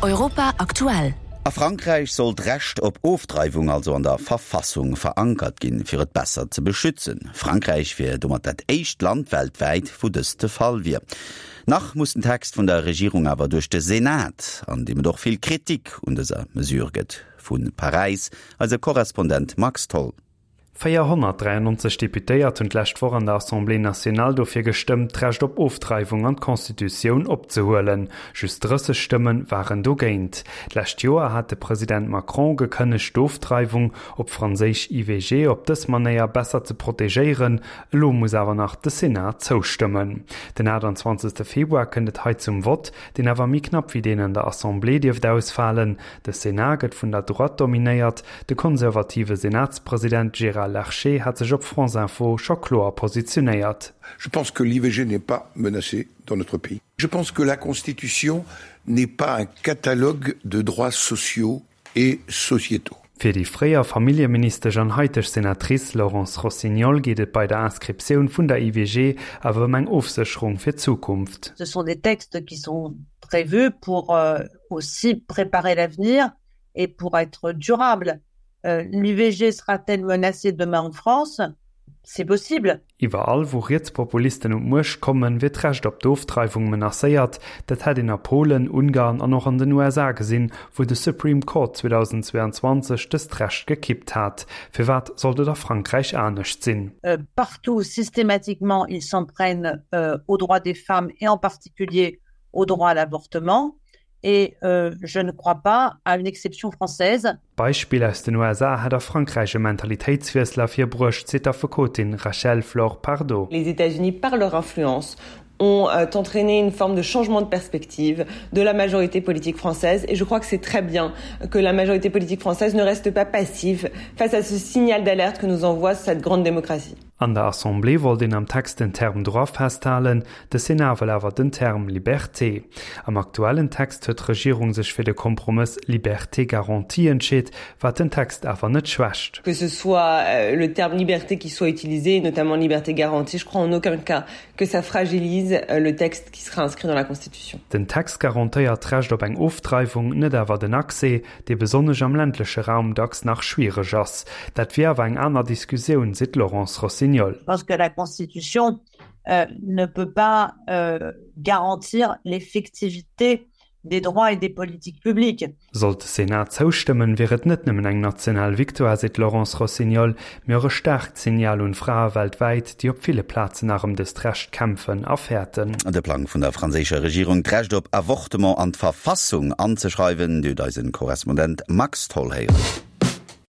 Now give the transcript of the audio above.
Europa aktuell. A Frankräich soll d'Recht op Ofdreiwung also an der Verfassung verankert ginn, fir et besser ze beschützen. Frankräich wier domat dat éischt Land weltwäit, wou dëst de Fall wier. Nach muss den Text vun der Regierung awer duerch de Senat, an deem et och vill Kritik un dëser Mesure gëtt. Vu Paräis eise Korrespondent Max Tholl. 493 Deputéiert hunn d'lescht Woch an der Assemblée nationale dofir gestëmmt, d'Recht op Ofdreiwung an d'Constitutioun opzehuelen. Just 30 Stëmme waren dogéint. D'lescht Joer hat de President Macron gekënnegt, d'Ofdreiwung, op Franséisch IVG, op dës Manéier besser ze protegéieren. Elo muss awer nach de Senat zoustëmmen. Den 28 Februar kënnt et hei zum Vott, deen awer méi knapp wéi deen an der Assemblée dierft ausfalen. De Sénat gëtt vun der Droite dominéiert. De konservative Senatspresident Gérard Larcher hat sech op France Info scho kloer positionéiert. Je pense que l'IVG n'est pas menacée dans notre pays. Je pense que la Constitution n'est pas un catalogue de droits sociaux et sociétaux. Fir déi fréier Familljeministesch an haiteg Senatrice Laurence Rossignol geet et bei der Inscriptioun vun der IVG awer ëm eng Ofsécherung fir d'Zukunft. Ce sont des textes qui sont prévus pour aussi préparer l'avenir et pour être durable. Euh, L'IVG sera-t-elle menacée demain en France? C'est possible. Iwwerall wou Rietspopulisten un d'Muecht kommen, wier d'Recht op d'Ofdreiwung menacéiert. Dat hätt een a Polen, Ungarn an och an den USA gesinn, wou de Supreme Court 2022 dëst Recht gekippt hat. Firwat sollt et a Frankräich anescht sinn? Partout, systématiquement, ils s'en prennent aux droits des femmes et en particulier au droit à l'avortement et euh, je ne crois pas à une exception française. D'Beispill aus den USA hätt a Frankräich e Mentalitéitswiessel ervirbruecht, seet d'Affekotin Rachel Flore Pardo. Les États-Unis par leur influence ont euh, entraîné une forme de changement de perspective de la majorité politique française et je crois que c'est très bien que la majorité politique française ne reste pas passive face à ce signal d'alerte que nous envoie cette grande démocratie. An der Assemblée wollt een am Text den Term Droit festhalen, de Sénat wëll awer den Term Liberté. Am aktuellen Text huet d'Regierung sech fir de Kompromëss Liberté garantie entscheet, wat den Text awer net schwächt. Que ce soit le terme liberté qui soit utilisé, notamment liberté garantie, je crois en aucun cas que ça fragilise le texte qui sera inscrit dans la Constitution. Den Text garantéiert d'Recht op eng Ofdreiwung, net awer den Accès, dee besonnesch am ländleche Raum dacks nach schwiereg ass. Dat wier awer eng aner Diskussioun, seet d'Laurence Rossignol. Parce que la Constitution ne peut pas garantir l'effectivité des droits et des politiques publiques. Sollt de Senat zoustëmmen, wier et net nëmmen eng national Victoire, seet d'Laurence Rossignol, mee och e staarkt Signal un d'Frae weltwäit, déi op ville Plazen nach ëm dëst Recht kämpfen a fäerten. De Plang vun der franséischer Regierung, d'Recht op Avortement an d'Verfassung anzeschreiwen, déi huet eisen Korrespondent Max Tholl héieren.